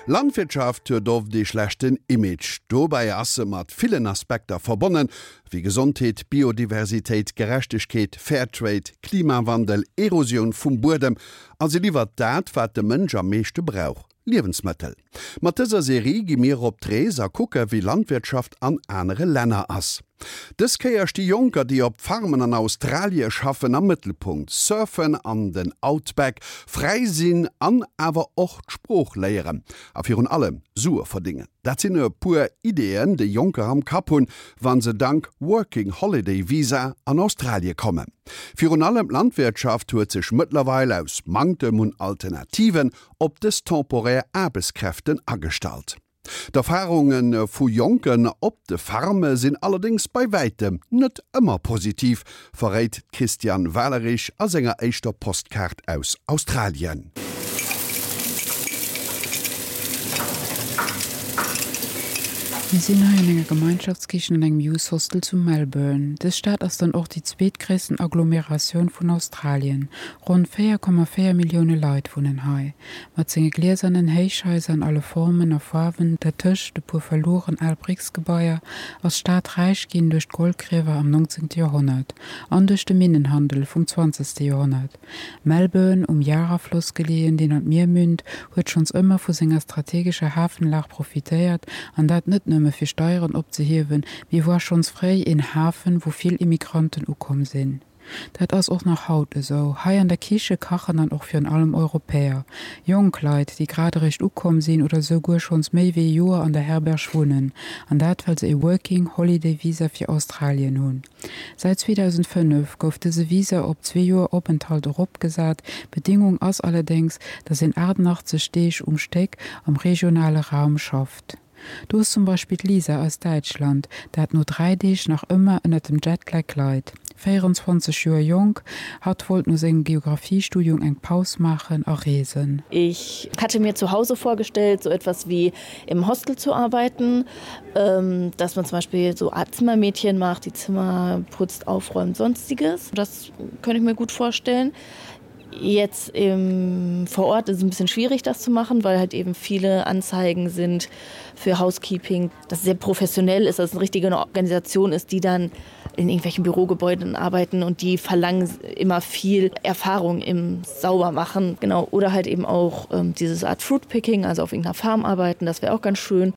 Landwirtschaft huet oft ee schlechten Image. Dobäi ass se mat villen Aspekter verbonnen, wéi Gesondheet, Biodiversitéit, Gerechtegkeet, Fairtrade, Klimawandel, Erosioun vum Buedem a se liwwert dat, wat de Mënsch am meeschte brauch, Liewensmëttel. Mat dëser Serie gi mir op d'Rees a kucke wéi Landwirtschaft an anere Länner ass. Dës Kéier sti Jonker, déi op Farmen an Australie schaffen, am Mëttelpunkt. Surfen an den Outback, fräi sinn an awer och d'Sprooch léieren a virun allem Sue verdéngen. Dat sinn e puer Ideeën, déi Jonker am Kapp hunn, wa se dank Working Holiday Visa an Australie kommen. Virun allem d'Landwirtschaft huet sech mëttlerweil aus Manktem un Alternativen op dës temporär Aarbechtskräften agestallt. D'Erfarunge vu Jonken op de Farme sinn allerdéngs bei wäitem net ëmmer positiv, verréit d'Christiane Walerich a senger éischter Postkaart aus Australien. Mir sinn hei an enger Gemeinschaftskichen an engem Youth Hostel zu Melbourne. Dës Stad ass dann och déi zweetgréissten Agglomeratioun vun Australien. Ronn 4,4 Millioune Leit wunnen hei. Mat senge gliesernen Héichhaiser an alle Formen a Faarwen, dertëscht e puer verlueren al Bricksgebaier, ass d'Stad räich ginn duerch d'Goldgriewer am 19. Joerhonnert an duerch de Minnenhandel vum 20. Joerhonnert. Melbourne, um Yarra-Floss geleeën, deen an d'Mier münnt, huet schonns ëmmer vu senger strategescher Hafenlag profitéiert, an dat net nëmme fir Steieren opzehiewen, mee war schonns fréi een Hafen, wou vill Immigranten ukomm sinn. Dat ass och nach haut esou. Hei an der Kiche kachen dann och virun allem Europäer. Jonk Leit, déi grad eréischt ukomm sinn oder esouguer schonns méi wéi e Joer an der Herberg wunnen. An dat well se e Working Holiday Visa fir Australien hunn. Säit 2005 gouf dëse Visa op zwee Joer Openthalt eropgesat. Bedingung ass allerdéngs, datt een 88 Deeg um Stéck am regionale Raum schafft. Do ass zum Beispill d'Lisa aus Däitschland, dat no 3 Deeg nach ëmmer ënnert dem Jetlag leit. 24 Joer jonk, hatt wollt no sengem Geographiestudium eng Paus maachen a reesen. Ich hatte mir zu Hause vorgestellt, so etwas wie im Hostel zu arbeiten, dass man zum Beispiel so Art Zimmermädchen macht, die Zimmer putzt, aufräumt, sonstiges. Das könnte ich mir gut vorstellen. Jetzt im vor Ort ist es ein bisschen schwierig, das zu machen, weil halt eben viele Anzeigen sind für Housekeeping, das sehr professionell ist, dass es eine richtige Organisation ist, die dann in irgendwelchen Bürogebäuden arbeiten und die verlangen immer viel Erfahrung im Saubermachen genau oder halt eben auch ähm, dieses Art Fruitpicking, also auf irgendeiner Farm arbeiten, das wäre auch ganz schön.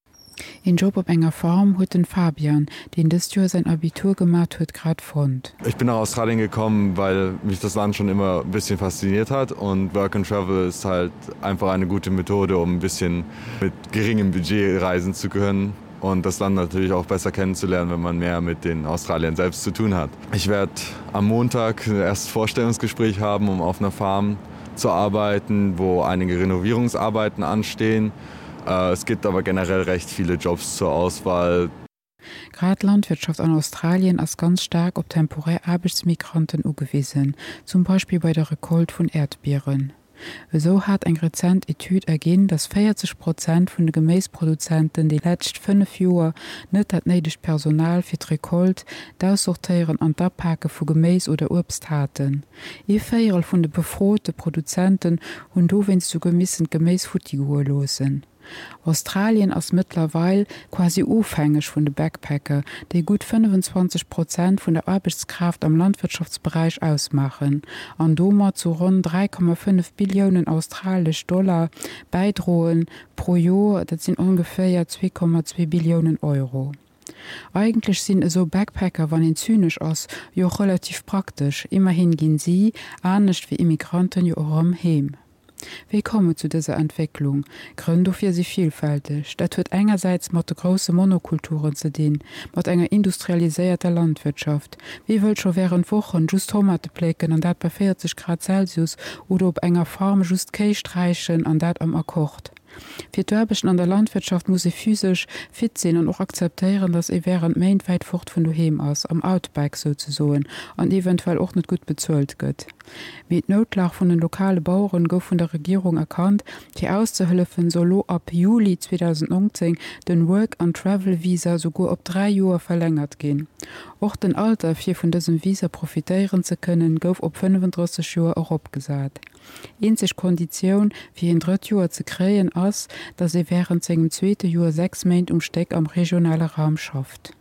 Een Job op enger Farm huet den Fabian, deen dëst Joer säin Abitur gemat huet, grad fonnt. Ich bin nach Australien gekommen, weil mich das Land schon immer ein bisschen fasziniert hat und Work and Travel ist halt einfach eine gute Methode, um ein bisschen mit geringem Budget reisen zu können und das Land natürlich auch besser kennenzulernen, wenn man mehr mit den Australiern selbst zu tun hat. Ich werde am Montag erst Vorstellungsgespräch haben, um auf einer Farm zu arbeiten, wo einige Renovierungsarbeiten anstehen. Es gibt aber generell recht viele Jobs zur Auswahl. Grad d'Landwirtschaft an Australien ass ganz staark op temporär Aarbechtsmigranten ugewisen, zum Beispill bei der Recolte vun Äerdbieren. Esou hat eng rezent Etüd erginn, datt 40 Prozent vun de Geméisproduzenten déi lescht 5 Joer net dat néidegt Personal fir d'Recolte, d'Aussortéieren an d'Apake vu Geméis oder Uebst haten. Ee Véierel vun de befrote Produzenten hunn dowéinst souguer missen d'Geméis futti goe loossen. Australien ass mëttlerweil quasi ofhängeg vun de Backpacker, déi gutt 25 Prozent vun der Aarbechtskraaft am Landwirtschaftsberäich ausmaachen an domat zu ronn 3,5 Billiounen australesch Dollar bäidroen pro Joer, dat sinn ongeféier 2,2 Billiounen Euro. Eigentlech sinn esou Backpacker, wann een zynesch ass, jo och relativ praktesch, immerhin ginn si, anescht wéi Immigranten, jo och erëm heem. Wéi koum et zu dëser Entwécklung? Grënn dofir si villfälteg. Dat huet engersäits mat de grousse Monokulturen ze dinn, mat enger industrialiséierter Landwirtschaft. Wie wëllt scho wärend Wochen just Tomate plécken an dat bei 40 Grad Celsius oder op enger Farm just Kéi sträichen an dat am Akkord? Fir d'Aarbechten an der Landwirtschaft muss ee physesch fit sinn an och akzeptéieren, datt ee wärend Méint wäit fort vun doheem ass, am Outback souzesoen, an eventuell och net gutt bezuelt gëtt. Mee d'Noutlag vun den lokale Baueren gouf vun der Regierung erkannt. Fir auszehëllefen, soll lo ab Juli 2019 den Work and Travel Visa souguer op 3 Joer verlängert ginn. Och den Alter fir vun dësem Visa profitéieren ze kënnen, gouf op 35 Joer eropgesat. Eenzeg Konditioun fir een drëtt Joer ze kréien ass, datt ee wärend sengem zweete Joer 6 Méint um Stéck am regionale Raum schafft.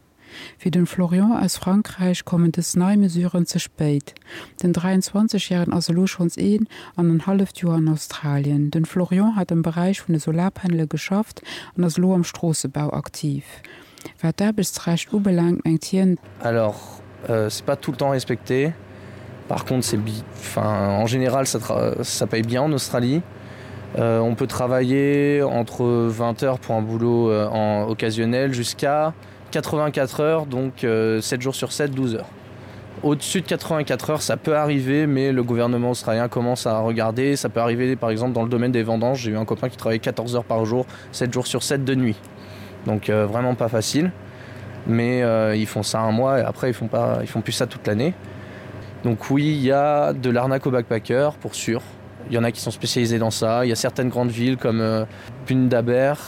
Fir den Florian aus Frankräich kommen dës nei Mesuren ze spéit. Den 23 Järegen ass elo schonns een an en halleft Joer an Australien. Den Florian hat am Beräich vun de Solarpanele geschafft an ass elo am Stroossebau aktiv. Wat d'Aarbechtsrecht ubelaangt, mengt hien. Alors c'est pas tout le temps respecté. Par contre c'est enfin en général ça ça paye bien en Australie. Euh, on peut travailler entre 20 heures pour un boulot euh, en occasionnel jusqu'à 84 heures donc euh, 7 jours sur 7 12 heures. Au-dessus de 84 heures, ça peut arriver, mais le gouvernement australien commence à regarder. Ça peut arriver par exemple dans le domaine des vendanges. J'ai eu un copain qui travaillait 14 heures par jour, 7 jours sur 7 de nuit. Donc euh, vraiment pas facile. Mais euh, ils font ça un mois et après ils font, pas, ils font plus ça toute l'année. Donc oui, il y a de l'arnaque au backpacker pour sûr. Il y en a qui sont spécialisés dans ça. Il y a certaines grandes villes comme euh, Bundaberg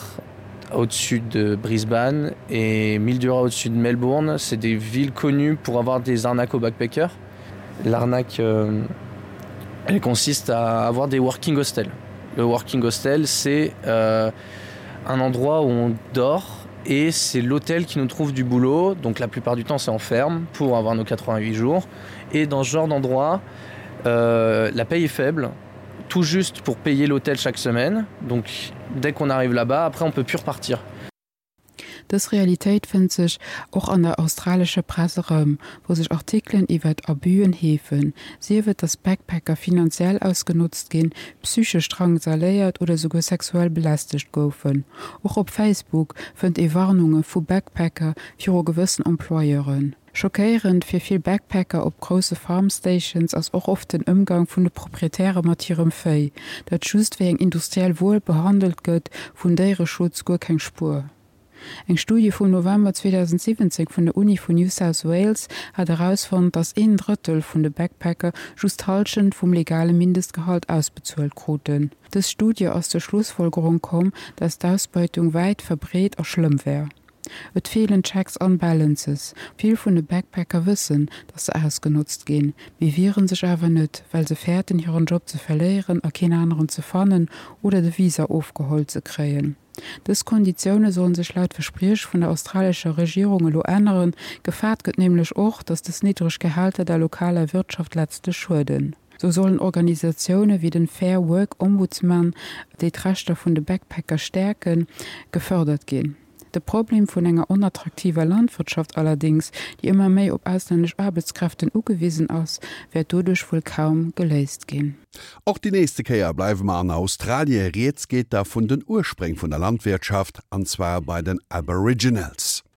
au-dessus de Brisbane et Mildura au-dessus de Melbourne. C'est des villes connues pour avoir des arnaques aux backpackers. L'arnaque euh, elle consiste à avoir des working hostels. Le working hostel, c'est euh, un endroit où on dort et c'est l'hôtel qui nous trouve du boulot. Donc la plupart du temps c'est en ferme pour avoir nos 88 jours. Et dans ce genre d'endroit, euh, la paye est faible, tout juste pour payer l'hôtel chaque semaine. Donc dès qu'on arrive là-bas, après on peut plus repartir. Dës Realitéit fënnt sech och an der australescher Press erëm, wou sech Artikelen iwwert Abüen heefen, sief et, datt Backpacker finanziell ausgenotzt ginn, psychesch drangsaléiert oder souguer sexuell belästegt goufen. Och op Facebook fënnt ee Warnunge vu Backpacker viru gewëssen Employeuren. Schockéierend fir vill Backpacker op grousse Farm Stations ass och oft den Ëmgang vun de Proprietäre mat hirem Véi, dat just wéi eng industriell Wuer behandelt gëtt, vun Déiereschutz guer keng Spuer. Eng Studie vum November 2017 vun der Uni vun New South Wales hat erausfonnt, datt een Drëttel vun de Backpacker just d'Hallschent vum legale Mindestgehalt ausbezuelt kruten. Dës Studie ass zur Schlussfolgerung komm, datt d'Ausbeutung wäit verbreet a schlëmm wär. Et feelen Checks an Balances. Vill vun de Backpacker wëssen, dass se ausgenotzt ginn, mee wieren sech awer net, well se fäerten hiren Job ze verléieren a keen aneren ze fannen oder de Visa ofgeholl ze kréien. Dës Konditioune sollen sech laut Verspriech vun der australescher Regierung elo änneren. Gefaart gëtt nämlech och, dass dës niddreg Gehälter der lokaler Wirtschaft letztlech schueden. Sou sollen Organisatioune wéi den Fair Work Ombudsman, déi d'Rechter vun de Backpacker stäerken, gefërdert ginn. De Problem vun enger onattraktiver Landwirtschaft allerdéngs, déi ëmmer méi op auslännesch Aarbechtskräften ugewisen ass, wäert doduerch wuel kaum geléist ginn. Och déi nächste Kéier bleiwe mer an Australie. Rieds geet da vun den Urspréng vun der Landwirtschaft, an zwar bei den Aboriginals.